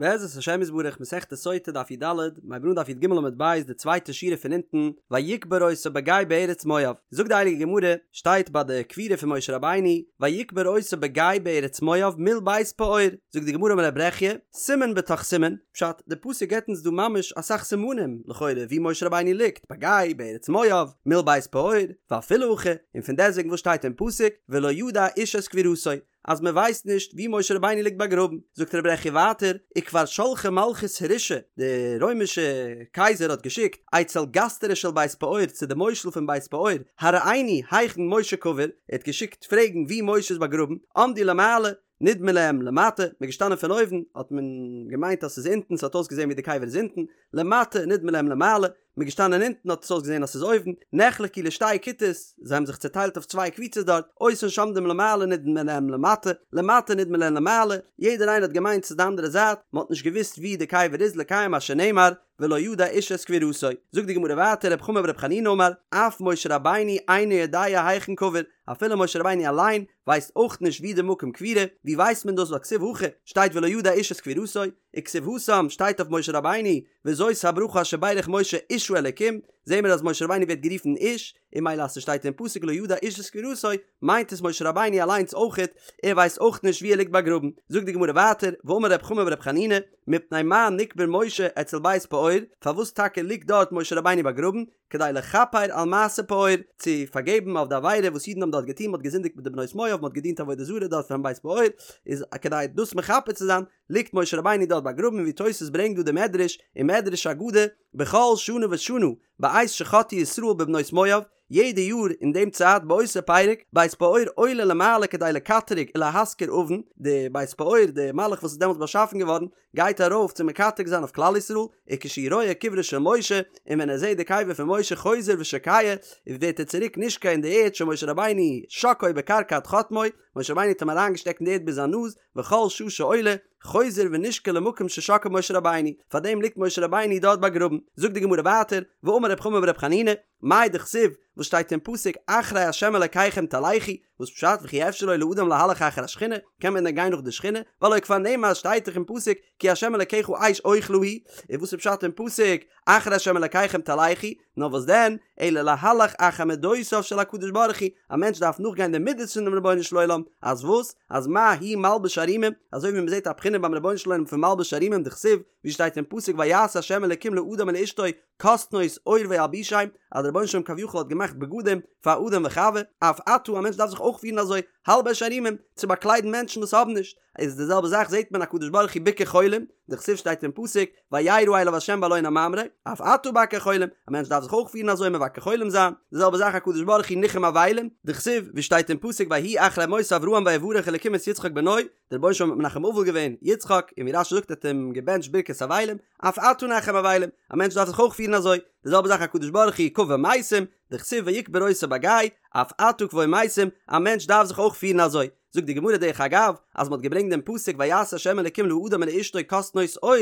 בעזרת השם יתברך מסכת סוטה דף י"ד, מיר הייבן אן דף י"ג עמוד ב' די צווייטע שורה פון אונטן, ויקבר אותו בגיא בארץ מואב, זאגט די הייליגע גמרא, שטייט ביי די קבירה פון משה רבינו, ויקבר אותו בגיא בארץ מואב מול בית פעור, זאגט די גמרא אמר ר' ברכיה, סימן בתוך סימן, פשט, די פסוק געבט אונז דא ממש אסאך סימנים, לכאורה, ווי משה רבינו ליגט, בגיא, בארץ מואב, מול בית פעור, ואפילו הכי, און פון דעסטוועגן וואס שטייט אין פסוק, ולא ידע איש את קבורתו, אז מען ווייסט נישט ווי משה רבינו ליגט באגראבן, זאגט ר' ברכיה ווייטער, וכבר שלחה מלכות הרשעה, די רוימישע קייזער האט געשיקט, אצל גסטרא של בית פעור צו די מושל פון בית פעור, הראינו היכן משה קבור, ער האט געשיקט פרעגן ווי משה איז באגראבן, עמדו למעלה, נדמה להם למטה, מען איז געשטאנען פון אויבן, האט מען געמיינט אז ס'איז אונטן, ס'האט אויסגעזען ווי די קבר איז אונטן, למטה, נדמה להם למעלה, מ'איז געשטאנען אונטן האט עס אויסגעזען אז ס'איז אויבן, נחלקו לשתי כיתות, זיי האבן זיך צעטיילט אויף צוויי קבוצות דארט, אותן שעומדים למעלה נדמה להם למטה, למטה נדמה להם למעלה, יעדער איינער האט געמיינט ס'איז די אנדערע זייט, מ'האט נישט געוואוסט וואו די קבר איז לקיים מה שנאמר, ולא ידע איש את קבורתו. זאגט די גמרא ווייטער רב חמא ברב חנינא אמר, אף משה רבינו אינו יודע היכן קבור, אפילו משה רבינו אליין ווייסט אויך נישט וואו די מקום קבירה, ווי ווייסט מען דאס ווייל כתיב הכא שטייט ולא ידע איש את קבורתו, וכתיב התם שטייט אויף משה רבינו וזאת הברכה אשר ברך משה איש האלקים, זעהן מיר אז משה רבינו ווערט גערופן איש, און ממילא אז ס'שטייט אין פסוק לא ידע איש את קבורתו, מיינט עס משה רבינו אליינס אויכעט, ער ווייסט אויך נישט ווי ער ליגט באגראבן. זאגט די גמרא ווייטער, ואמר רב חמא ברב חנינא, מפני מה נקבר משה אצל בית פעור, פארוואס טאקע ליגט דארט משה רבינו באגראבן, כדי לכפר על מעשה פעור, צו פארגעבן אויף די עבירה וואס אידן האבן דארט געטון, מ'האט געזינדיגט מיט די בנות מואב, מ'האט געדינט עבודה זרה דארט פארן בית פעור, איז כדי דאס מכפר צו זיין, ליגט משה רבינו דארט באגראבן ווי תוס' ברענגט דא די מדרש אין מדרש אגדה בכל שנה ושנה בעת שחטאו ישראל בבנות מואב יעדע יאר אין דעם צייט באותו פרק בית פעור עולה למעלה כדי לקטרג ולהזכיר עוון די בית פעור די מלאך וואס איז דעמאלטס באשאפן געווארן גייט ארויף צו מקטרג זיין אויף כלל ישראל וכשהוא רואה קברו של משה און ווען ער זעט די קבר פון משה חוזר ושוקע ווערט ער צוריק נשקע אין די ערד שמשה רבינו שקעו בקרקע עד חוטמו משה רבינו האט אים אריינגעשטעקט אין די ערד ביז זיין נאז וכל שעה שעולה, חוזר ונשקע למקום ששקעו משה רבינו, פארדעם ליגט משה רבינו דארט באגראבן. זאגט די גמרא ווייטער, ואמר רב חמא ברב חנינא, מאי דכתיב, וואס שטייט אין פסוק אחרי ה' אלקיכם תלכו, וואס פשט וכי אפשר לו לאדם להלך אחר השכינה, קען מען דען גיין נאך די שכינה, והלא כבר נאמר שטייט דאך אין פסוק כי ה' אלקיך אש אוכלה הוא, און וואס איז פשט אין פסוק אחרי ה' אלקיכם תלכו, נאר וואס דען, אלא להלך אחר מדותיו של הקדוש ברוך הוא, א מענטש דארף נאכגיין די מידות פונעם רבונו של עולם, אז וואס? אז מה הוא מלביש ערומים, אזוי ווי מען זעט א בחינה ביים רבונו של עולם פון מלביש ערומים דכתיב, ווי שטייט אין פסוק ויעש ה' אלקים לאדם ולאשתו כתנות עור וילבישם, אז דער רבונו של עולם כביכול האט געמאכט בגדים פאר אדם וחוה, אף אתה, א מענטש דארף זיך אויך פירן אזוי, הלבש ערומים, צו באקליידן מענטשן וואס האבן נישט, איז די זעלבע זאך זעט מען הקדוש ברוך הוא ביקר חולים, דכתיב שטייט אין פסוק, וירא אליו ה' באלון הממרא, אף אתה בקר חולים, א מענטש דארף זיך אויך פירן אזוי מבקר חולים זיין, די זעלבע זאך הקדוש ברוך הוא ניחם אבלים, דכתיב, ווי שטייט אין פסוק ויהי אחרי מות אברהם ויברך אלקים את יצחק בנו, דער רבונו של עולם האט מנחם אבל געווען יצחק, און ווי רש"י זאגט האט אים געבענטשט ברכת אבלים, אף אתה נחם אבלים, א מענטש דארף זיך אויך פירן אזוי, די זעלבע זאך הקדוש ברוך הוא קבר מתים, דכתיב ויקבר אותו בגיא, אף אתה קבור מתים, א מענטש דארף זיך אויך פירן אזוי. זאגט די גמרא דרך אגב, אז מ'האט געברענגט דעם פסוק ויעש ה' אלקים לאדם ולאשתו כתנות עור,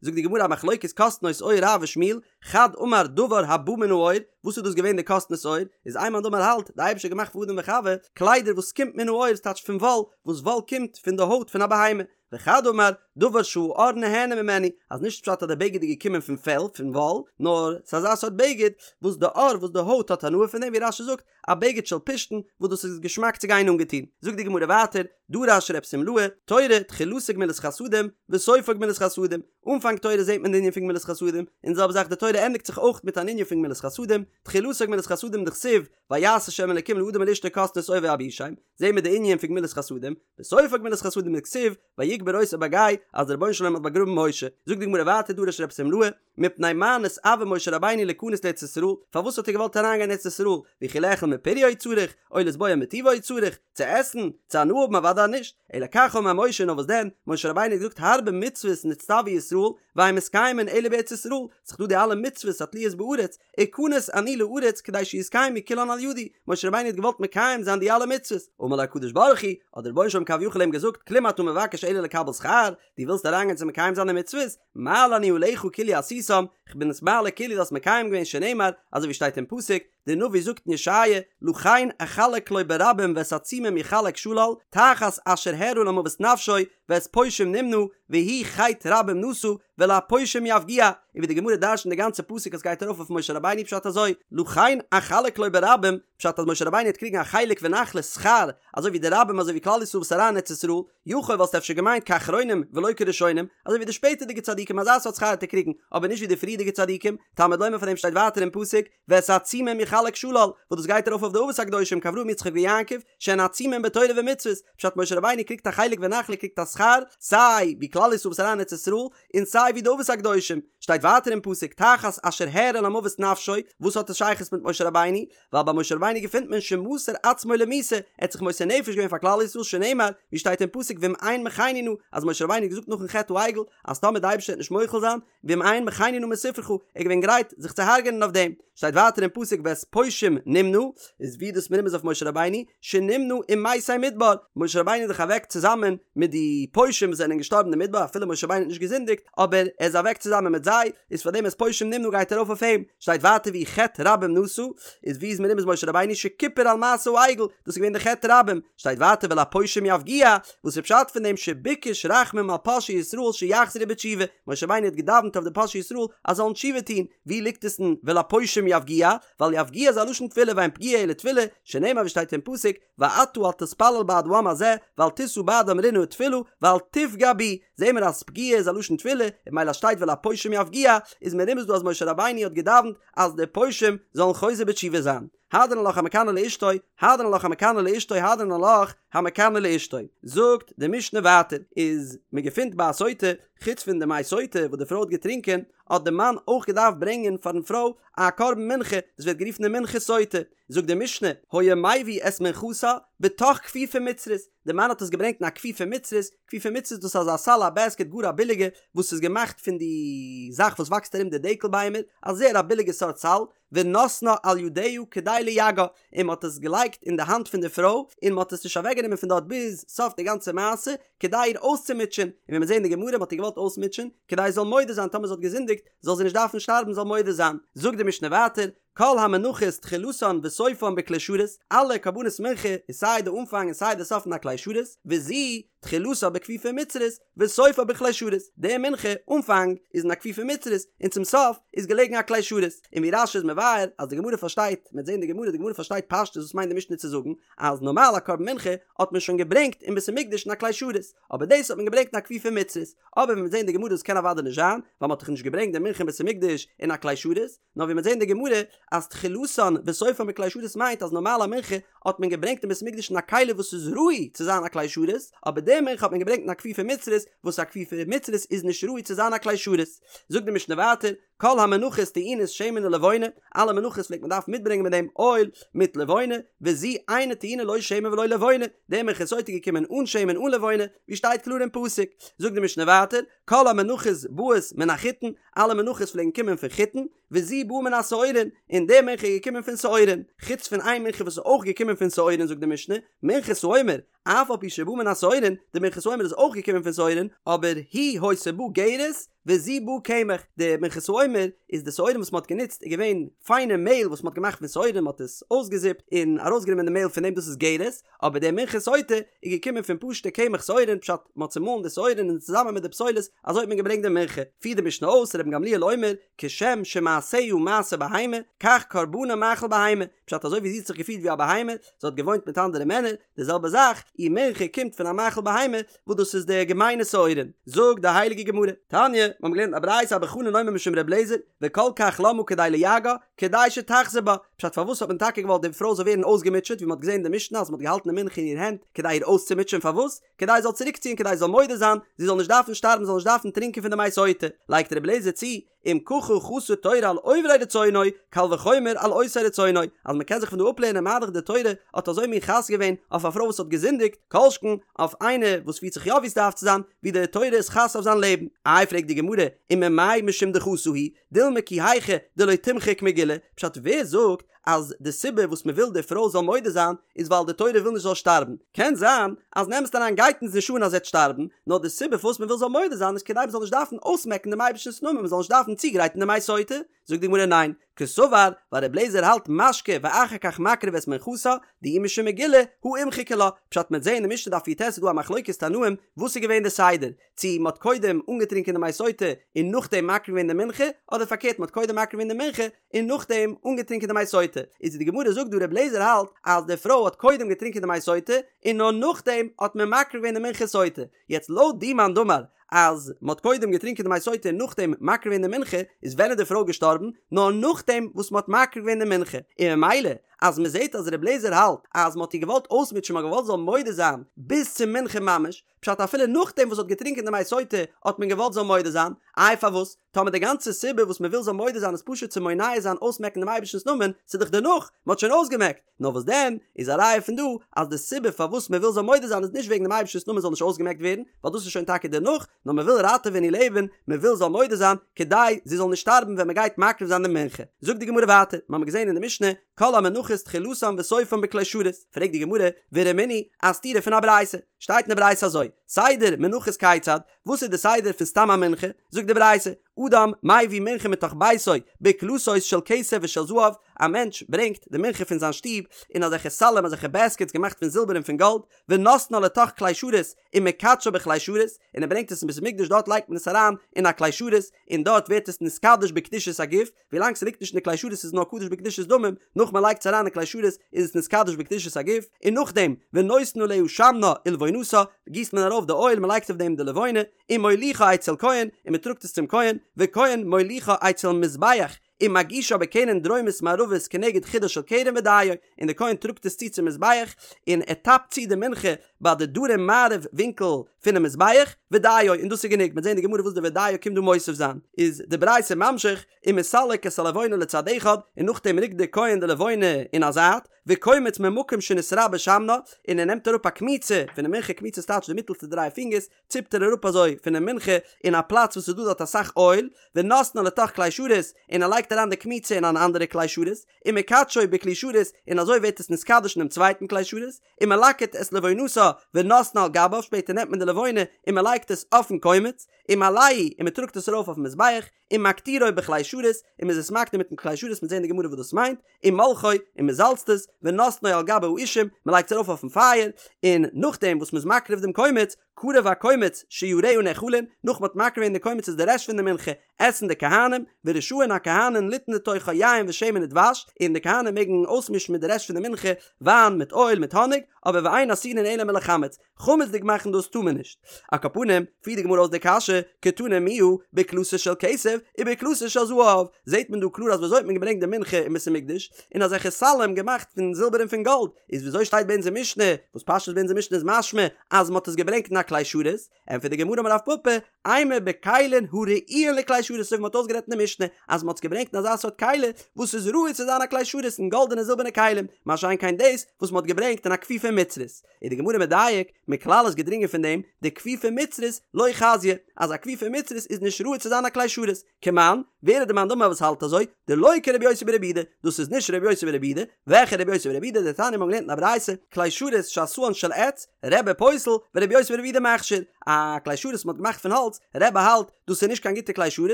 זאגט די גמרא א מחלוקת כתנות עור רב ושמואל, חד אמר דבר הבא מן העור, וואס איז דאס געווען די כתנות עור, איז איין מאן דאמר האלט, די אייבערשטער האט געמאכט פאר אדם וחוה, קליידער וואס קומט מן העור, ס'טייטש פון וואל, וואס וואל קומט פון די הויט פון א בהמה, וחד אמר, דבר שהעור נהנה ממנו, אז נישט פשט אז די בגד איז געקומען פון פעל, פון וואל, נאר ס'איז אזא סארט בגד וואס די עור, וואס די הויט האט הנאה פון דעם, ווי רש"י זאגט, א בגד של פשתן, וואס דאס איז געשמאק צו גיין אנגעטון. זאגט די גמרא ווייטער, דרש רב שמלאי, תורה, תחילתה גמילות חסדים, וסופה גמילות חסדים, אנפאנג תורה זעט מען די ענין פון גמילות חסדים, און די זעלבע זאך די תורה ענדיגט זיך אויך מיט אן ענין פון גמילות חסדים, תחילתה גמילות חסדים דכתיב, ויעש ה' אלקים לאדם ולאשתו כתנות עור וילבישם, זעהן מיר די ענין פון גמילות חסדים, וסופה גמילות חסדים דכתיב, ויקבר אותו בגיא, אז דער רבונו של עולם האט באגראבן משה. זאגט די גמרא ווייטער דרש רב שמלאי, מפני מה נתאוה משה רבינו ליכנס לארץ ישראל, פארוואס האט ער געוואלט אריינגיין ארץ ישראל, וכי לאכול מפריה הוא צריך, או לשבוע מטובה הוא צריך, צו עסן, צו הנאה האבן אוודאי נישט, אלא כך אמר משה נאר וואס דען, משה רבינו האט געזאגט הרבה מצוות נצטוו ישראל, ואין מתקיימין אלא בארץ ישראל, ס'איז דא די אלע מצוות התלויות בארץ, אכנס אני לארץ כדי שיתקיימו כולן על ידי, משה רבינו האט געוואלט מקיים זיין די אלע מצוות, אמר לו הקדוש ברוך הוא, האט דער רבונו של עולם כביכול אים געזאגט, כלום אתה מבקש אלא לקבל שכר, דו ווילסט אריינגיין צו מקיים זיין די מצוות, מעלה אני עליך כאילו עשיתם, כ'בין עס מעלה כאילו דו האסט מקיים געווען שנאמר, אזוי ווי שטייט אין פסוק, דער נביא זאגט אין ישעיה, לכן אחלק לו ברבים ואת עצומים יחלק שלל, תחת אשר הערה למוות נפשו, ואת פושעים נמנה, והוא חטא רבים נשא, ולפושעים יפגיע, און ווי די גמרא דרש'נט די גאנצע פסוק אז גייט ארויף אויף משה רבינו פשט אזוי, לכן אחלק לו ברבים, פשט אז משה רבינו וועט קריגן א חלק ונחלה שכר, אזוי ווי די רבים אזוי ווי כלל ישראל וואס אריין אין ארץ ישראל, יכול וואלסטו אפשר געמיינט כאחרונים ולא כראשונים, אזוי ווי די שפעטערדיגע צדיקים אזא סארט שכר וועט ער קריגן, אבער נישט ווי די פריערדיגע צדיקים, תלמוד לומר פאר דעם שטייט ווייטער אין פסוק, ואת עצומים יחלק שלל, וואס דאס גייט ארויף אויף די אבות הקדושים כאברהם יצחק ויעקב, שהן עצומים בתורה ומצוות, פשט משה רבינו קריגט א חלק ונחלה קריגט א שכר, סיי ווי כלל ישראל וואס אריין אין ארץ ישראל, און סיי ווי די אבות הקדושים, שטייט ווייטער אין פסוק תחת אשר הערה למוות נפשו, וואס האט עס שייכות מיט משה רבינו? ווייל ביי משה רבינו געפינט מען שמסר עצמו למיתה, ער האט זיך מוסר נפש געווען פאר כלל ישראל שנאמר, ווי שטייט אין פסוק ואם אין מחני נא, אז משה רבינו האט געזאגט נאכן חטא העגל, אז טאמער די אייבערשטער וועט נישט מוחל זיין, ואם אין מחני נא מספרך, ער איז געווען גרייט זיך צו הרג'ענען אויף דעם. שטייט ווייטער אין פסוק ואת פושעים נמנה, איז ווי דאס מרומז אויף משה רבינו, שנמנה עם מתי מדבר, משה רבינו איז דאך אוועק צוזאמען מיט די פושעים וואס זענען געשטארבן אין מדבר, אפילו משה רבינו האט נישט געזינדיגט, אבער ער איז אוועק צוזאמען מיט זיי, איז פאר דעם את פושעים נמנה גייט ארויף אויף אים. שטייט ווייטער והוא חטא רבים נשא, איז ווי איז מרומז משה רבינו שכיפר על מעשה העגל, דאס איז געווען די חטא רבים. שטייט ווייטער ולפושעים יפגיע, וואס איז פשט פון דעם שביקש רחמים על פושעי ישראל שיחזרו בתשובה, משה רבינו האט געדאווענט אויף די פושעי ישראל אז זאלן תשובה טון, ווי ליגט עס אין ולפושעים יפגיע, ווייל יפגיע איז א לשון תפילה ואין פגיעה אלא תפילה, שנאמר ווי שטייט אין פסוק, ואתה אל תתפלל בעד העם הזה, ואל תשא בעדם רנה ותפלה, ואל תפגע בי, זעהן מיר אז פגיעה איז א לשון תפילה, און ממילא שטייט ולפושעים יפגיע, איז מרומז דא אז משה רבינו האט געדאווענט אז די פושעים זאלן חוזר בתשובה זיין. הדרן עלך המקנא לאשתו, הדרן עלך המקנא לאשתו, הדרן עלך המקנא לאשתו. זאגט די משנה ווייטער, איז מען געפינט ביי א סוטה, חוץ פון די מי סוטה וואס די פרוי האט געטרינקען, האט די מאן אויך געדארפט ברענגען פארן פרוי א קרבן מנחה, דאס ווערט גערופן די מנחת סוטה. זאגט די משנה, היה מביא את מנחתה בתוך כפיפה מצרית, די מאן האט עס געברענגט אין א כפיפה מצרית, כפיפה מצרית דאס איז אזא סל א בעסקעט גאר א ביליגע, וואס איז געמאכט פון די זאך וואס וואקסט ארום די דקל ביימער, א זייער א ביליגע סארט סל, ונתנה על ידיה כדי ליגעה, און מען האט עס געלייגט אין די האנט פון די פרוי, און מען האט עס נישט אוועק גענומען פון דארט ביז סוף די גאנצע מעשה, כדי איר אויסצומוטשען, און ווי מיר זעהן אין די גמרא מען האט איר געוואלט אויסמוטשען, כדי זי זאל מודה זיין טאמער זי האט געזינדיגט, זאל זי נישט דארפן שטארבן זאל מודה זיין. זאגט די משנה ווייטער, כל המנחות תחילתן וסופן בכלי שרת, אלע קרבנות מנחה איז סיי די אנפאנג און סיי די סוף אין א כלי שרת, וזו תחילתה בכפיפה מצרית וסופה בכלי שרת, די מנחה אנפאנג איז אין א כפיפה מצרית און צום סוף איז געלעגן א כלי שרת, און ווי רש"י איז מבאר אז די גמרא פארשטייט, מ'וועט זען די גמרא, די גמרא פארשטייט פשטות וואס מיינט די משנה צו זאגן אז נארמאל א קרבן מנחה האט מען שוין געברענגט אין בית המקדש אין א כלי שרת, אבער דאס האט מען געברענגט אין א כפיפה מצרית, אבער ווי מ'וועט זען די גמרא דאס קען אוודאי נישט זיין, ווייל מ'האט דאך נישט געברענגט די מנחה אין בית המקדש אין א כלי שרת, נאר ווי מ'וועט זען אין די גמרא אז תחילתן וסופן בכלי שרת מיינט אז נארמאל א מנחה האט מען געברענגט אין בית המקדש אין א כלי וואס איז ראוי צו זיין א כלי שרת, אבער די מנחה האט מען געברענגט אין א כפיפה מצרית וואס א כפיפה מצרית איז נישט ראוי צו זיין א כלי שרת. זאגט די משנה ווייטער, כל המנחות טעונות שמן ולבונה, אלע מנחות פלעגט מען דארפן מיטברענגען מיט דעם אויל מיט לבונה, וזו אינה טעונה לא שמן ולא לבונה, די מנחת סוטה איז געקומען אן שמן אן לבונה, ווי שטייט קלאר אין פסוק. זאגט די משנה ווייטער, כל המנחות באות מן החיטין, אלע מנחות פלעגן קומען פון חיטין, וזו באה מן השעורין, און די מנחה איז געקומען פון שעורין, חוץ פון איין מנחה וואס איז אויך געקומען פון שעורין זאגט די משנה, מנחת העומר, אף על פי שבאה מן השעורין, די מנחת העומר איז אויך געקומען פון שעורין, אבער היא היתה באה גרש, וזו באה קמח, די מנחת העומר איז די שעורים וואס מען האט גענוצט איז געווען פיינע מעהל וואס מען האט געמאכט פון שעורים מען האט עס אויסגעזיפט און ארויסגענומען די מעהל פון דעם דאס איז גרש, אבער די מנחת סוטה איז געקומען פון פשוטע קמח שעורים פשט מען האט צומאלן די שעורים און צוזאמען מיט די פסולת אזוי האט מען געברענגט די מנחה, פירט די משנה אויס רבן גמליאל אומר כשם שמעשיה מעשה בהמה כך קרבנה מאכל בהמה, פשט אזוי ווי זי האט זיך געפירט ווי א בהמה, זי האט געוואוינט מיט אנדערע מענער, די זעלבע זאך, איר מנחה קומט פון א מאכל בהמה, וואס דאס איז די געמיינע שעורים. זאגט די הייליגע גמרא, תניא, מיר האבן געלערנט א ברייתא אבא חנין אומר משום ר' אליעזר, וכל כך למה כדי ליגעה, כדי שתחזור בה, פשט פארוואס האט מען טאקע געוואלט די פרוי זאל ווערן אויסגעמוטשעט, ווי מען האט געזען אין די משנה אז מען האט געהאלטן די מנחה אין איר הענט כדי איר אויסצומוטשען, פארוואס? כדי זי זאל צוריקציען כדי זי זאל מודה זיין, זי זאל נישט דארפן שטארבן זי זאל נישט דארפן טרינקען פון די מי סוטה, לייגט ר' אליעזר צו, אם ככה חסה תורה על עוברי רצונו, קל וחומר על עושי רצונו, אז מען קען זיך פון דא אפלערנען מה דאך די תורה האט אזוי מין חס געווען אויף א פרוי וואס האט געזינדיגט, כל שכן אויף איינער וואס פירט זיך יא ווי עס דארף צו זיין, ווי די תורה איז חס אויף זיין לעבן. איי פרעגט די גמרא, וממאי משום דחסה הוא, דילמא כי היכי דלא תמחק מגילה, פשט ווער זאגט אז די סיבה וואס מען וויל די פרוי זאל מודה זיין איז ווייל די תורה וויל נישט זאל שטארבן, קען זיין אז אין אמת'ן אריין גייט אונז נישט אן אז זי וועט שטארבן, נאר די סיבה פארוואס מען וויל זאל מודה זיין איז כדי מען זאל נישט דארפן אויסמעקן דעם אייבערשטנ'ס נאמען מען זאל נישט דארפן צוגרייטן די מי סוטה, זאגט די גמרא ניין, קסבר, ווייל ר' לעזער האלט משקה ואחר כך מקריב את מנחתה, דאי משום מגילה, הא אימחיקא לה, פשט מ'עט זעהן אין משנה דף י"ט איז דא א מחלוקת תנאים וואס איז געווען די סדר, צו מ'האט קודם אנגעטרינקען די מי סוטה און נאכדעם מקריב געווען די מנחה, אדער פארקערט מ'האט קודם מקריב געווען די מנחה און נאכדעם אנגעטרינקען די מי סוטה, איז די גמרא זאגט דא ר' לעזער האלט אז די פרוי האט קודם געטרינקען די מי סוטה און נאר נאכדעם האט מען מקריב געווען די מנחת סוטה, יעצט לויט די מאן דאמר אז מען האט קודם געטרינקען די מי סוטה און נאכדעם מקריב געווען די מנחה, איז ווען איז די פרוי געשטארבן? נאר נאכדעם וואס מען האט מקריב געווען די מנחה, און ממילא אז מען זעט אז ר' לעזער האלט אז מען האט איר געוואלט אויסמוטשען מען האט געוואלט זי זאל מודה זיין ביז צום מנחה ממש, פשט אפילו נאכדעם וואס זי האט געטרינקען די מי סוטה האט מען געוואלט זי זאל מודה זיין, איי פארוואס? טאמער די גאנצע סיבה וואס מען וויל זאל מודה זיין איז פשוט צו מונע זיין אויסמעקן דעם אייבערשטנ'ס נאמען, ס'איז דאך דערנאך, מען האט שוין אויסגעמעקט, נאר וואס דען, איז א ראיה פון דא אז די סיבה פארוואס מען וויל זאל מודה זיין איז נישט וועגן דעם אייבערשטנ'ס נאמען זאל נישט אויסגעמעקט ווערן, ווייל דאס איז שוין טאקע דערנאך, נאר מען וויל ראטעווען איר לעבן, מען וויל זאל מודה זיין, כדי זי זאל נישט שטארבן ווען מען גייט מקריב זיין די מנחה. זאגט די גמרא ווייטער, מיר האבן געזען אין די משנה, כל המנחות תחילתן וסופן בכלי שרת, פרעגט די גמרא, ורמינהי, א סתירה פון א ברייתא, שטייט אין די ברייתא אזוי, סדר מנחות כיצד, וואס איז די סדר פון סתם א מנחה? זאגט די ברייתא, אדם מביא מנחה מתוך ביתו בקלתות של כסף ושל זהב, א מענטש ברענגט די מנחה פון זיין שטוב אין אזעלכע סלים אזעלכע בעסקעטס געמאכט פון זילבער און פון גאלד, ונותנה לתוך כלי שרת ומקדשה בכלי שרת, און ער ברענגט עס אין בית המקדש דארט לייגט מען עס אריין אין א כלי שרת און דארט ווערט עס נתקדש בקדושת הגוף, ווילאנג ס'ליגט נישט אין די כלי שרת איז נאר קדוש בקדושת דמים, נאך מ'לייגט עס אריין אין כלי שרת איז עס נתקדש בקדושת הגוף, און נאכדעם ונותן עליה שמנה ולבונתה גיסט מען ארויף די אויל מ'לייגט אויף דעם די לבונה, ומוליכה אצל כהן און מ'טראגט עס צום כהן, וכהן מוליכה אצל מזבח ומגישה בקרן דרומית מערבית כנגד חודה של קרן ודיו, און די כהן טראגט עס צו צום מזבח און ער טאפט צו די מנחה ביי די דרום מערב ווינקל פונעם מזבח, ודיו, און דאס איז גענוג, מ'וועט זען אין די גמרא וואס די ודיו קומט דא מוסיף זיין, איז די ברייתא ממשיך, ומסלק את הלבונה לצד אחד, און נאכדעם רוקט דער כהן די לבונה אין א זייט, וקומץ ממקום שנתרבה שמנה, און ער נעמט אראפ א קמיצה פונעם מנחה, קמיצה איז טייטש די מיטעלסטע דריי פינגערס, ציפט ער אראפ אזוי פונעם מנחה אין א פלאץ וואס איז דא דארט אסאך אויל, ונותנה לתוך כלי שרת, און ער לייגט אריין די קמיצה אין אן אנדערע כלי שרת, ומקדשו בכלי שרת, און אזוי ווערט עס נתקדש אינעם צווייטן כלי שרת, ומלקט את לבונתה ונותנה על גביו, שפעטער נעמט מען די לבונה און מען לייגט עס אויפן קומץ, ומעלהו, און מען טראגט עס ארויף אויפן מזבח, ומקטירו בכלי שרת, און מען איז עס מקטיר מיטן כלי שרת, מ'וועט זען אין די גמרא וואס דאס מיינט, ומולחו, און מען זאלצט עס, ונותנו על גבי האישים, מען לייגט עס ארויף אויפן פייער, און נאכדעם וואס מען איז מקריב דעם קומץ, קרב הקומץ שיריה נאכלין, נאך מען האט מקריב געווען די קומץ איז די רעשט פון די מנחה, עסן די כהנים, ורשאין הכהנים ליתן לתוכה יין ושמן ודבש, און די כהנים מעגן אויסמישן מיט די רעשט פון די מנחה, וויין מיט אויל מיט האניג, אבער ואין אסורין אלא מלחמץ, חמצ'דיג מאכן דאס טאר מען נישט. על כל פנים, פירט די גמרא אויס די קשיא, קתני מיהא, בקלתות של כסף, ובקלתות של זהב, זעט מען דא קלאר אז וויאזוי האט מען געברענגט די מנחה אין בית המקדש, אין אזעלכע סלים געמאכט פון זילבער און פון גאלד, איז וויאזוי שטייט ביי אונזער משנה, וואס פשטות ביי אונזער משנה איז משמע אז מען האט עס געברענגט אין א כלי שרת, ענטפערט די גמרא אמר רב פפא, אימא בכלים הראויין לכלי שרת אזוי ווי מען האט אויסגערעדט אין די משנה אז מען האט עס געברענגט אין אזא סארט כלי וואס איז ראוי צו זיין א כלי שרת אין גאלדענע זילבערנע כלים, מה שאין כן דאס וואס מען האט געברענגט אין א כפיפה מצרית. איז די גמרא מדייק, מכלל איז געדרינגען פון דעם, דכפיפה מצרית לא חזיא, אז א כפיפה מצרית איז נישט ראוי צו זיין א כלי שרת. כמאן, ווער איז די מאן דאמר וואס האלט אזוי? דלא כרבי יוסי ברבי יהודה, דאס איז נישט רבי יוסי ברבי יהודה, וועלכע רבי יוסי ברבי יהודה? דתניא מ'האט געלערנט אין א ברייתא, כלי שרת שעשאן של עץ, רבי פוסל, ורבי יוסי ברבי יהודה מכשיר, א כלי שרת וואס מ'האט געמאכט פון האלץ, רבי האלט דאס איז נישט קיין גוטע כלי שרת,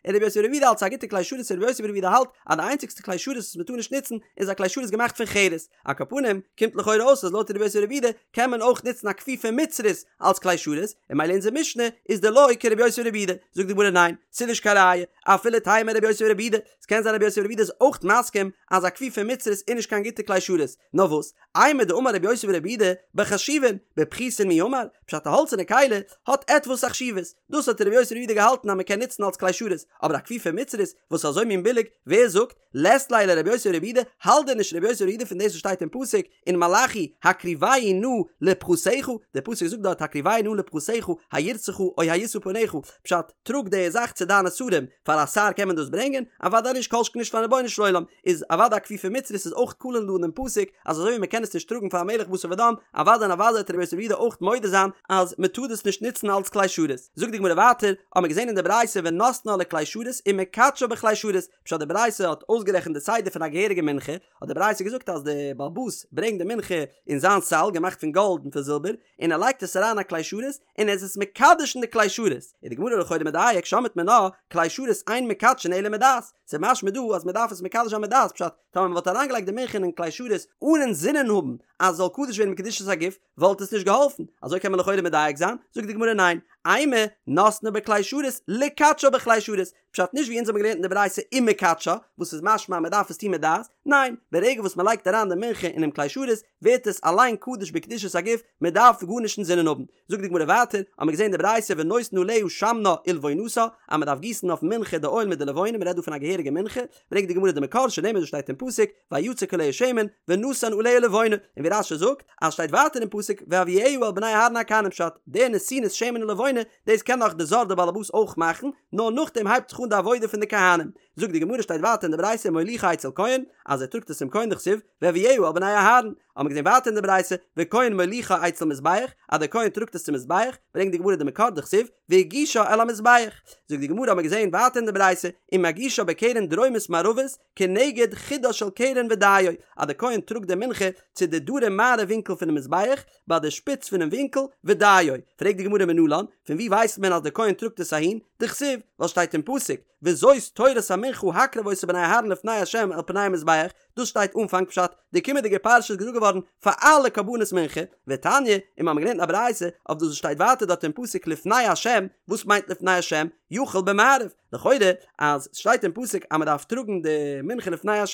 און רבי יוסי ברבי יהודה האלט ס'איז א גוטע כלי שרת, רבי יוסי ברבי יהודה האלט אז די איינציגסטע כלי שרת וואס מ'טאר נישט נוצן איז א כלי שרת געמאכט פון חרס, על כל פנים, קומט לכאורה אויס אז לויט רבי יוסי ברבי יהודה קען מען אויך נוצן א כפיפה מצרית אלץ כלי שרת, און ממילא אונזער משנה איז דלא כרבי יוסי ברבי יהודה, זאגט די גמרא ניין, ס'איז נישט קיין ראיה, אפילו תימא רבי יוסי ברבי יהודה, ס'קען זיין רבי יוסי ברבי יהודה איז אויך מסכים אז א כפיפה מצרית איז נישט קיין גוטע כלי שרת, נאר וואס, אימר דאמר רבי יוסי ברבי יהודה בחשובין, בפחותין מי אמר, פשט א האלצערנע כלי האט עטוואס א חשיבות, דאס האט רבי יוסי ברבי יהודה געהאלטן אז מ'קען נוצן אלץ כלי שרת, אבער א כפיפה מצרית וואס איז אזוי מין ביליג, ווער זאגט? לית ליה לרבי יוסי ברבי יהודה, האלט דען נישט רבי יוסי ברבי יהודה פון דאס וואס שטייט אין פסוק אין מלאכי הקריבהו נא לפחתך, דער פסוק זאגט דארט הקריבהו נא לפחתך, הירצך או הישא פניך, פשט, טראג די זאך צו דיינע שרים, פאר א שר קען מען דאס ברענגען? אוודאי נישט כל שכן נישט פארן רבונו של עולם, איז אוודאי א כפיפה מצרית איז אויך כלול דא אין דעם פסוק, אז אזוי ווי מען קען עס נישט טראגן פאר א מלך בשר ודם, אוודאי און אוודאי וועט רבי יוסי בר' יהודה אויך מודה זיין אז מען טאר דאס נישט נוצן אלץ כלי שרת. זאגט די גמרא ווייטער, האט מען געזען אין די ברייתא ונותנה לכלי שרת ומקדשה בכלי שרת, פשט די ברייתא האט אויסגערעכנט די סדר פון א געהעריגע מנחה, האט די ברייתא געזאגט אז די בעל הבית ברענגט די מנחה אין זיין סל געמאכט פון גאלד און פון זילבער, און ער לייגט עס אריין א כלי שרת, און ער איז עס מקדש אין די כלי שרת, איז די גמרא לכאורה מדייק שמעת מינה, כלי שרת אין מקדשין אלא מדעת, ס'איז משמע דא אז מ'דארף עס מקדש זיין מדעת, פשט, טאמער מ'וואלט אריינגעלייגט די מנחה אינעם כלי שרת אן אינזינען האבן אז עס זאל קדוש ווערן בקדושת הגוף, וואלט עס נישט געהאלפן, אזוי קען מען לכאורה מדייק זיין, זאגט די גמרא ניין, אימא נותנה בכלי שרת לקדשה בכלי שרת, פשט נישט ווי אונז האבן געלערנט אין די ברייתא ומקדשה, וואס איז משמע אז מ'דארף עס טון מיט דעת, ניין, ברגע וואס מ'לייגט אריין די מנחה אינעם כלי שרת, ווערט עס אליין קדוש בקדושת הגוף, מ'דארף גארנישט אינזינען האבן. זאגט די גמרא ווייטער, האמיר געזען די ברייתא ונותן עליה שמנה ולבונתה, אז מ'דארף גיסן אויפן מנחה די אויל מיט די לבונה, מ'רעדט דא פון א געהעריגע מנחה, ברענגט די גמרא די מקור שנאמר דאס שטייט אין פסוק, ויצק עליה שמן, ונתן עליה לבונה, און ווי רש"י זאגט, אז שטייט ווייטער אין פסוק, והביאה אל בני אהרן הכהנים פשט, די נתינת שמן ולבונה, דאס קען נאך די זר די באלעבאס אויך מאכן, נאר נאכדעם הייבט זיך אן די עבודה פון די כהנים. זאגט די גמרא שטייט ווייטער אין די ברייתא ומוליכה אצל כהן, אז ער טראגט עס צום כהן דכתיב, והביאה אל בני אהרן, האבן מיר געזען ווייטער אין די ברייתא, וכהן מוליכה אצל מזבח, אז דער כהן טראגט עס צום מזבח, ברענגט די גמרא די מקור דכתיב, והגישה אל המזבח. זאגט די גמרא האבן מיר געזען ווייטער אין די ברייתא, ומגישה בקרן דרומית מערבית, כנגד חודה של קרן ודיו, אז דער כהן טראגט די מנחה צו די דרום מערב ווינקל פונעם מזבח, ביי די שפיץ פונעם ווינקל, ודיו. פרעגט די גמרא מנלן, פון וואו ווייסט מען אז דער כהן טראגט עס אהין? דכתיב, ווייל שטייט אין פסוק, וזאת תורת המנחה הקרב אותה בני אהרן לפני ה' אל פני המזבח, דאס שטייט אנפאנג פשט, די קומענדיגע פרשה איז געזאגט געווארן פאר אלע קרבנות מנחה, ותניא, און מיר האבן געלערנט א ברייתא אויף דאס וואס שטייט ווייטער דארט אין פסוק לפני ה', וואס מיינט לפני ה'? יכול במערב, לכאורה אז סשטייט אין פסוק אז מדארף טראגן די מנחה לפני ה'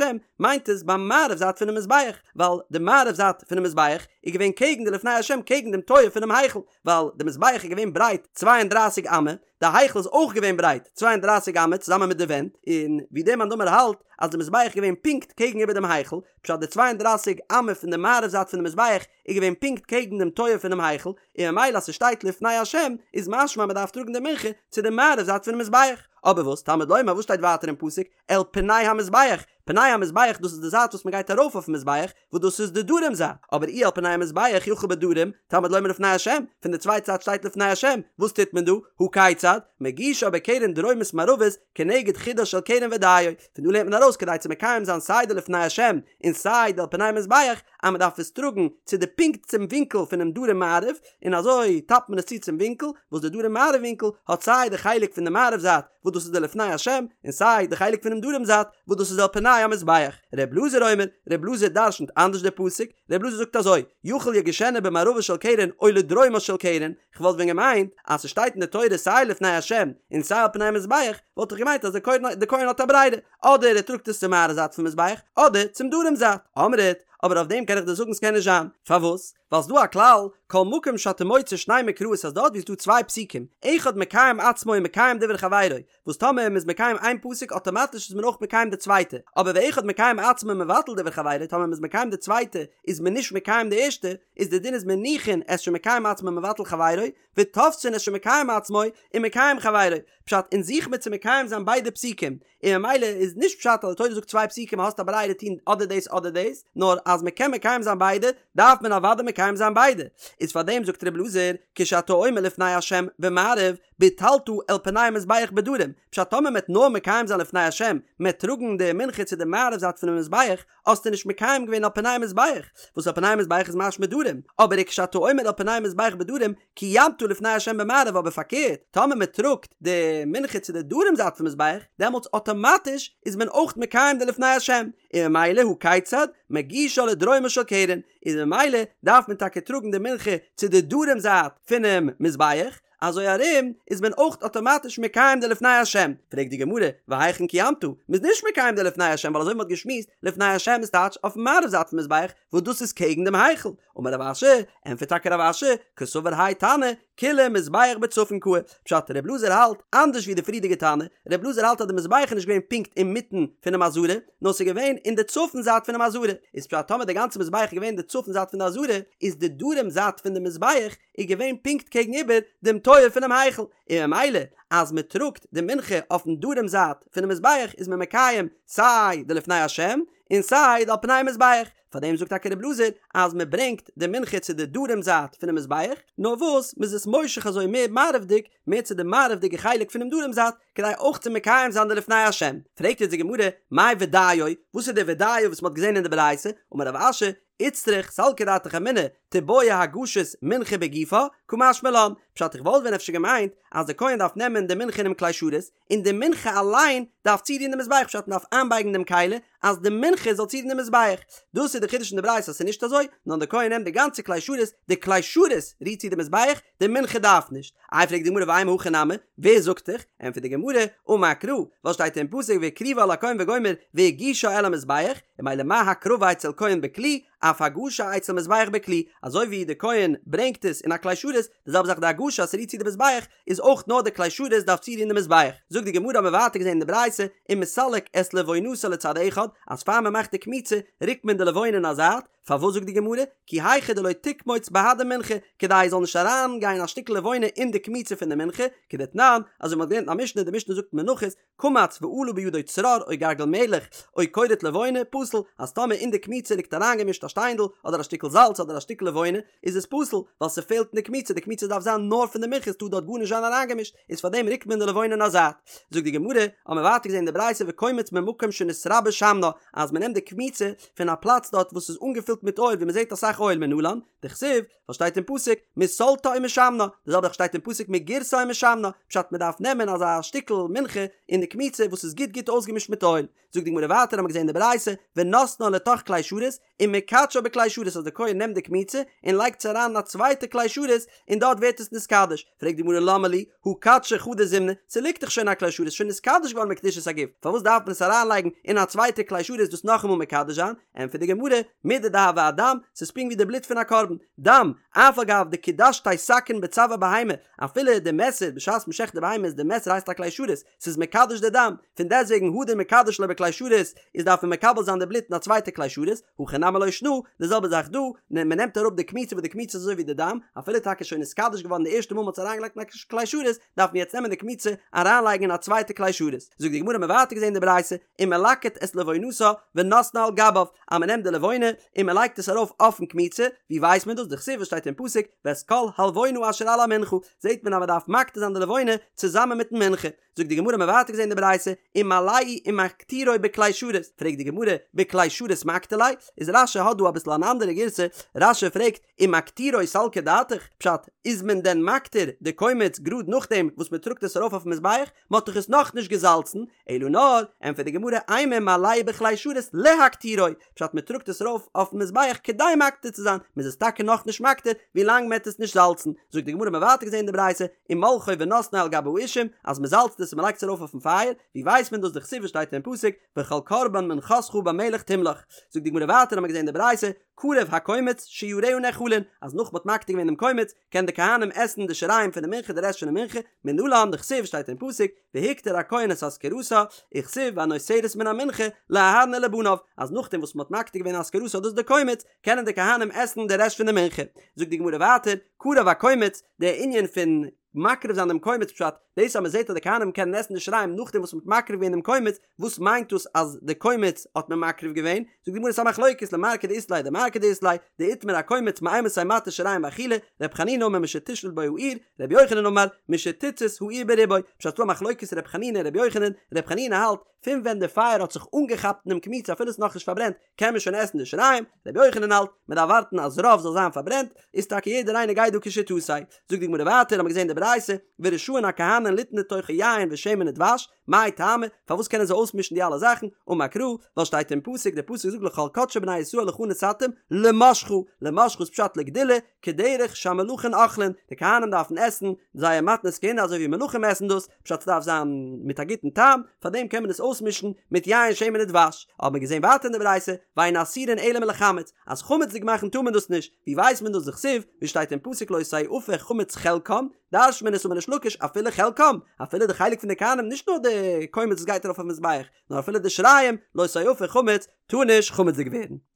מיינט עס ביים מערב זייט פונעם מזבח, ווייל די מערב זייט פונעם מזבח איז געווען קעגן די לפני ה' קעגן דעם טויער פונעם היכל, ווייל די מזבח איז געווען ברייט צוויי און דרײַסיק אמה, די היכל איז אויך געווען ברייט צוויי און דרײַסיק אמה צוזאמען מיט די ווענט, און ווי דער מאן דאמר האלט אז די מזבח איז געווען פונקט קעגן איבער דעם היכל, פשט די צוויי און דרײַסיק אמה פון די מערב זייט פונעם מזבח איז געווען פונקט קעגן דעם טויער פונעם היכל, און ממילא אז ס'שטייט לפני השם איז משמע אז מ'דארף טראגן די מנחה צו די מערב זייט פונעם מזבח. אבער וואס תלמוד לומר וואס שטייט ווייטער אין פסוק אל פני המזבח, פני המזבח דאס איז די זייט וואס מ'גייט ארויף אויפן מזבח, וואס דאס איז די דרום זייט, אבער אי אל פני המזבח יכול בדרום, תלמוד לומר לפני השם, פון די צווייטע זייט שטייט לפני השם, וואס טוט מען דא? הא כיצד? מגישה בקרן דרומית מערבית כנגד חודה של קרן ודיו, פון דא לערנט מען ארויס כדי צו מקיים זיין סיי די לפני השם און סיי די אל פני המזבח, אז מען דארף עס טראגן צו די פונקט צום ווינקל פונעם דרום מערב, און אזוי טאפט מען עס צו צום ווינקל, וואס די דרום מערב ווינקל האט סיי די חלק פון די מערב זייט וואס דאס איז די לפני השם, און סיי די חלק פונעם דרום זייט וואס דאס איז אל פני המזבח. ר' אלעזר אומר, ר' אלעזר דרשנ'ט אנדערש די פסוק, ר' אלעזר זאגט אזוי, יכול יגישנה במערבה של קרן או לדרומה של קרן, כ'וואלט ווען געמיינט אז ס'שטייט אין די תורה סיי לפני השם און סיי אל פני המזבח, וואלט איך געמיינט אז די כהן האט א ברירה, אדער ער טראגט עס צום מערב זייט פון מזבח, אדער צום דרום זייט. אמרת, אבער אויף דעם קען איך דיר זאגן ס'קען נישט זיין. פארוואס? ווייל ס'דא א כלל, כל מקום שאתה מוצא שני מקראות אז דארט ווי ס'דא צוויי פסוקים, אחד מקיים עצמו ומקיים דברי חברו, וואס טאמער מ'איז מקיים איין פסוק אטאמאטיש איז מען אויך מקיים די צווייטע, אבער ואחד מקיים עצמו ומבטל דברי חברו, טאמער מ'איז מקיים די צווייטע איז מען נישט מקיים די ערשטע, איז די דין איז מניחין את שמקיים עצמו ומבטל חברו, ותופסין את שמקיים עצמו ומקיים חברו, פשט, אונז זוך מיר צו מקיים זיין ביידע פסוקים, און ממילא איז נישט פשט אז די תורה זאגט צוויי פסוקים האסט א ברירה טון אדער דאס אדער דאס, נאר אז מען קען מקיים זיין ביידע דארף מען אוודאי מקיים זיין ביידע, איז פארדעם זאגט ר' אלעזר כשאתה אומר לפני השם במערב ביטלת אל פני המזבח בדרום, פשט טאמער מען וועט נאר מקיים זיין לפני השם, מען וועט טראגן די מנחה צו די מערב זייט פונעם מזבח, האסטו נישט מקיים געווען אל פני המזבח, וואס אל פני המזבח איז משמע דרום, אבער וכשאתה אומר אל פני המזבח בדרום, קיימת לפני השם במערב אבער פארקערט, טאמער מען טראגט די מנחה צו די דרום זייט פון מזבח, דעמאלטס אטאמאטיש איז מען אויך מקיים די לפני השם, און ממילא הא כיצד, מגישה לדרומה של קרן, איז ממילא דארף מען טאקע טראגן די מנחה צו די דרום זייט פונעם מזבח, אזוי ארום איז מען אויך אטאמאטיש מקיים די לפני השם, פרעגט די גמרא, והיכן קיימת? מ'איז נישט מקיים די לפני השם ווייל אזוי ווי מ'האט געשמועסט, לפני השם איז טייטש אויפן מערב זייט פון מזבח, וואס דאס איז קעגן דעם היכל, אמר רב אשי, ענטפערט טאקע רב אשי, קסבר האי תנא, כוליה מזבח בצפון קאי, פשט, ר' אלעזר האלט אנדערש ווי די פריערדיגע תנא, ר' אלעזר האלט אז די מזבח איז נישט געווען פונקט אינמיטן פונעם עזרה, נאר ס'איז געווען אין די צפון זייט פונעם עזרה, איז פשט טאמער די גאנצע מזבח איז געווען אין די צפון זייט פון די עזרה, איז די דרום זייט פון די מזבח איז געווען פונקט קעגן איבער דעם טויער פונעם היכל, און ממילא אז מען טראגט די מנחה אויפן דרום זייט פונעם מזבח איז מען מקיים סיי די לפני השם און סיי די על פני המזבח, פארדעם זאגט טאקע ר' אלעזר אז מען ברענגט די מנחה צו די דרום זייט פונעם מזבח, נאר וואס מען איז עס מושך אזוי מער מערב'דיג, מער צו די מערב'דיגע חלק פונעם דרום זייט, כדי אויך צו מקיים זיין די לפני השם. פרעגט יעצט די גמרא, מאי ודיו, וואס איז די ודיו וואס מען האט געזען אין די ברייתא, אמר רב אשי, איצטריך סלקא דעתך אמינא, תיבעי הגשת מנחה בגופה, קא משמע לן, פשט איך וואלט ווען אפשר געמיינט אז די כהן דארף נעמען די מנחה אינעם כלי שרת, און די מנחה אליין דארף צורירן די מזבח פשט מ'דארף איינבייגן דעם כלי אז די מנחה זאל צורירן די מזבח, דאס איז די חידוש אין די ברייתא אז ס'איז נישט אזוי, נאר די כהן נעמט די גאנצע כלי שרת, די כלי שרת רירט צו די מזבח, די מנחה דארף נישט. איי פרעגט די גמרא ואימא הכי נמי, ווער זאגט דיך? ענטפערט די גמרא, אמר קרא, ווייל שטייט אין פסוק והקריבה אל הכהן וגומר והגישה אל המזבח, און ממילא מה הקרבה אצל כהן בכלי, אף הגשה אצל מזבח בכלי, אזוי ווי די כהן ברענגט עס אין א כלי שרת, די זעלבע זאך די הגשה אז ס'רירט צו די מזבח, איז אויך נאר די כלי שרת דארף צורירן די מזבח. זאגט די גמרא האבן מיר ווייטער געזען אין די ברייתא, ומסלק את לבונתה לצד אחד, אז פאר מען מאכט די קמיצה רוקט מען די לבונה אין א זייט, פארוואס זאגט די גמרא, כי היכי דלא תקמוץ בהדי מנחה, כדי עס זאל נישט אריין גיין א שטיקל לבונה אין די קמיצה פון די מנחה, כדתנן, אזוי ווי מען האט געלערנט אין א משנה, די משנה זאגט מנחות, קמץ ועלה בידו צרור או גרגר מלח או קורט לבונה, פסול, אז טאמער אין די קמיצה ליגט אריינגעמישט א שטיינדל, אדער א שטיקל זאלץ אדער א שטיקל לבונה, איז עס פסול, ווייל ס'פעלט אין די קמיצה, די קמיצה דארף זיין נאר פון די מנחה, ס'טאר דארט גארנישט זיין אריינגעמישט, איז פארדעם רוקט מען די לבונה אין א זייט. זאגט די גמרא, האבן מיר ווייטער געזען אין די ברייתא וקומץ ממקום שנתרבה שמנה, אז מ'נעמט די קמיצה פון א פלאץ דארט וואס איז אנגעפילט מיט אויל ווי מ'זעט אסאך אויל מנלן, דכתיב, וואס שטייט אין פסוק מסלתה ומשמנה, די זעלבע זאך שטייט אין פסוק מגרשה ומשמנה, פשט מען דארף נעמען אזא שטיקל מנחה אין די קמיצה וואס איז גוט גוט אויסגעמישט מיט אויל, זאגט די גמרא ווייטער האבן מיר געזען אין די ברייתא ונותנה לתוך כלי שרת ומקדשה בכלי שרת אז די כהן נעמט די קמיצה און לייגט עס אריין אין א צווייטע כלי שרת און דארט ווערט עס נתקדש, פרעגט די גמרא למה לי הא קדשה חדא זימנא, ס'ליגט דאך שוין א כלי שרת שוין נתקדש געווארן בקדושת הגוף, פארוואס דארף מען עס אריינלייגן אין א צווייטע כלי שרת דאס נאכאמאל מקדש זיין, ענטפערט די גמרא, מידי דהוה אדם, ס'איז פונקט ווי די בלוט פון א קרבן, דם, אף על גב דקדשתיה סכין בצואר בהמה, אפילו די מעסער בשעת מ'שעכט די בהמה איז די מעסער הייסט א כלי שרת, ס'איז מקדש די דם, פון דעסטוועגן הדר מקדש ליה בכלי שרת, איז דארף מען מקבל זיין די בלוט אין א צווייטע כלי שרת, הכא נמי לא שנא, די זעלבע זאך דא, מ'נעמט אראפ די קמיצה וואס די קמיצה איז אזוי ווי די דם, אפילו טאקע שוין נתקדש געווארן די ערשטע מאל מ'האט עס אריינגעלייגט אין א כלי שרת, דארף מען יעצט נעמען די קמיצה אריינלייגן אין א צווייטע כלי שרת. זאגט די גמרא האבן מיר ווייטער געזען די ברייתא, ומלקט את לבונתה ונותנה על גביו, אז מען נעמט די לבונה און מען לייגט עס ארויף אויפן קמיצה, ווי ווייסט מען דאס? דכתיב וואס שטייט אין פסוק ואת כל הלבונה אשר על המנחה, זעט מען אז מען דארף מקטיר זיין די לבונה צוזאמען מיטן מנחה. זאגט די גמרא האבן מיר ווייטער געזען די ברייתא, ומעלהו ומקטירו בכלי שרת, פרעגט די גמרא, בכלי שרת מקטיר ליה? איז רש"י האט דא אביסל אן אנדערע גירסא, רש"י פרעגט, ומקטירו סלקא דעתך, פשט, איז מען דען מקטיר די קומץ גראד נאכדעם וואס מען טראגט עס ארויף אויפן מזבח? מען האט דאך עס נאכנישט געזאלצן, אלא נאר, ענטפערט די גמרא, אימא מעלהו בכלי שרת להקטירו, פשט מען טראגט עס ארויף אויפן מזבח כדי מקטיר צו זיין, מען איז עס טאקע נאכנישט מקטיר ווילאנג מען העט עס נישט זאלצן, זאגט די גמרא מען ווייטער געזען אין די ברייתא, ומולחו ונותנו על גבי האישים, אז מען זאלצט עס און מען לייגט עס ארויף אויפן פייער, ווי ווייסט מען דאס דכתיב וואס שטייט אין פסוק, וכל קרבן מנחתך במלח תמלח, זאגט די גמרא ווייטער האט מען געזען אין די ברייתא, קרב הקומץ שיריה נאכלין, אז נאך מען האט מקטיר געווען דעם קומץ, קען די כהנים עסן די שיריים פון די מנחה די רעשט פון די מנחה, מנלן דכתיב שטייט אין פסוק, והקטיר הכהן את אזכרתה, וכתיב והנותרת מן המנחה לאהרן ולבניו, אז נאכדעם וואס מען האט מקטיר געווען אזכרתה דאס איז די קומץ, קענען די כהנים עסן די רעשט פון די מנחה. זאגט די גמרא ווייטער, קרב הקומץ, די ענין פון מקריב זיין דעם קומץ פשט, דאס אז מען זעט אז די כהנים קענען עסן די שיריים נאכדעם וואס מען האט מקריב געווען דעם קומץ, וואס מיינט דאס אז די קומץ האט מען מקריב געווען? זאגט די גמרא ס'א מחלוקת למר כדאית ליה דמר כדאית ליה, דאיתמר הקומץ מאימתי מתיר שיריים באכילה, ר' חנינא אמר משתשלוט בו האור, ר' יוחנן אמר משתצית האור ברובו, פשט ס'דא א מחלוקת ר' חנינא און ר' יוחנן, ר' חנינא האלט פון ווען די פייער האט זיך אנגעכאפט אינעם קמיצה אפילו ס'איז נאכנישט פארברענט קען מען שוין עסן די שיריים, ר' יוחנן האלט מען דארף ווארטן אז רוב זאל זיין פארברענט, איז טאקע יעדער איינער גייט דא כשיטתו. זאגט די גמרא ווייטער האמיר געזען די ברייתא ורשאין הכהנים. כהנים ליתן לתוכו יין ושמן ודבש, מאי טעמא, פארוואס קענען זיי אויסמישן די אלע זאכן, אמר קרא, ווייל שטייט אין פסוק, דער פסוק זאגט לכל קדשי בני ישראל לך נתתים, למשחה, למשחה איז פשט לגדולה, כדרך שהמלכים אוכלין, די כהנים דארפן עסן זייער מתנות כהונה אזוי ווי מלכים עסן דאס, פשט ס'דארף זיין מיט א גוטן טעם, פארדעם קען מען עס אויסמישן מיט יין שמן ודבש, האט מען געזען ווייטער אין די ברייתא, ואין אסורין אלא מלחמץ, אז חמצ'דיג מאכן טאר מען דאס נישט, ווי ווייסט מען דאס דכתיב, ווי שטייט אין פסוק לא תאפה חמץ חלקם, דרש'ט מען עס אמר ריש לקיש אפילו חלקם, אפילו די חלק פון די כהנים נישט נאר די קומץ וואס גייט ארויף אויפן מזבח, נאר אפילו די שיריים, לא תאפה חמץ, טאר נישט חמצ'דיג ווערן.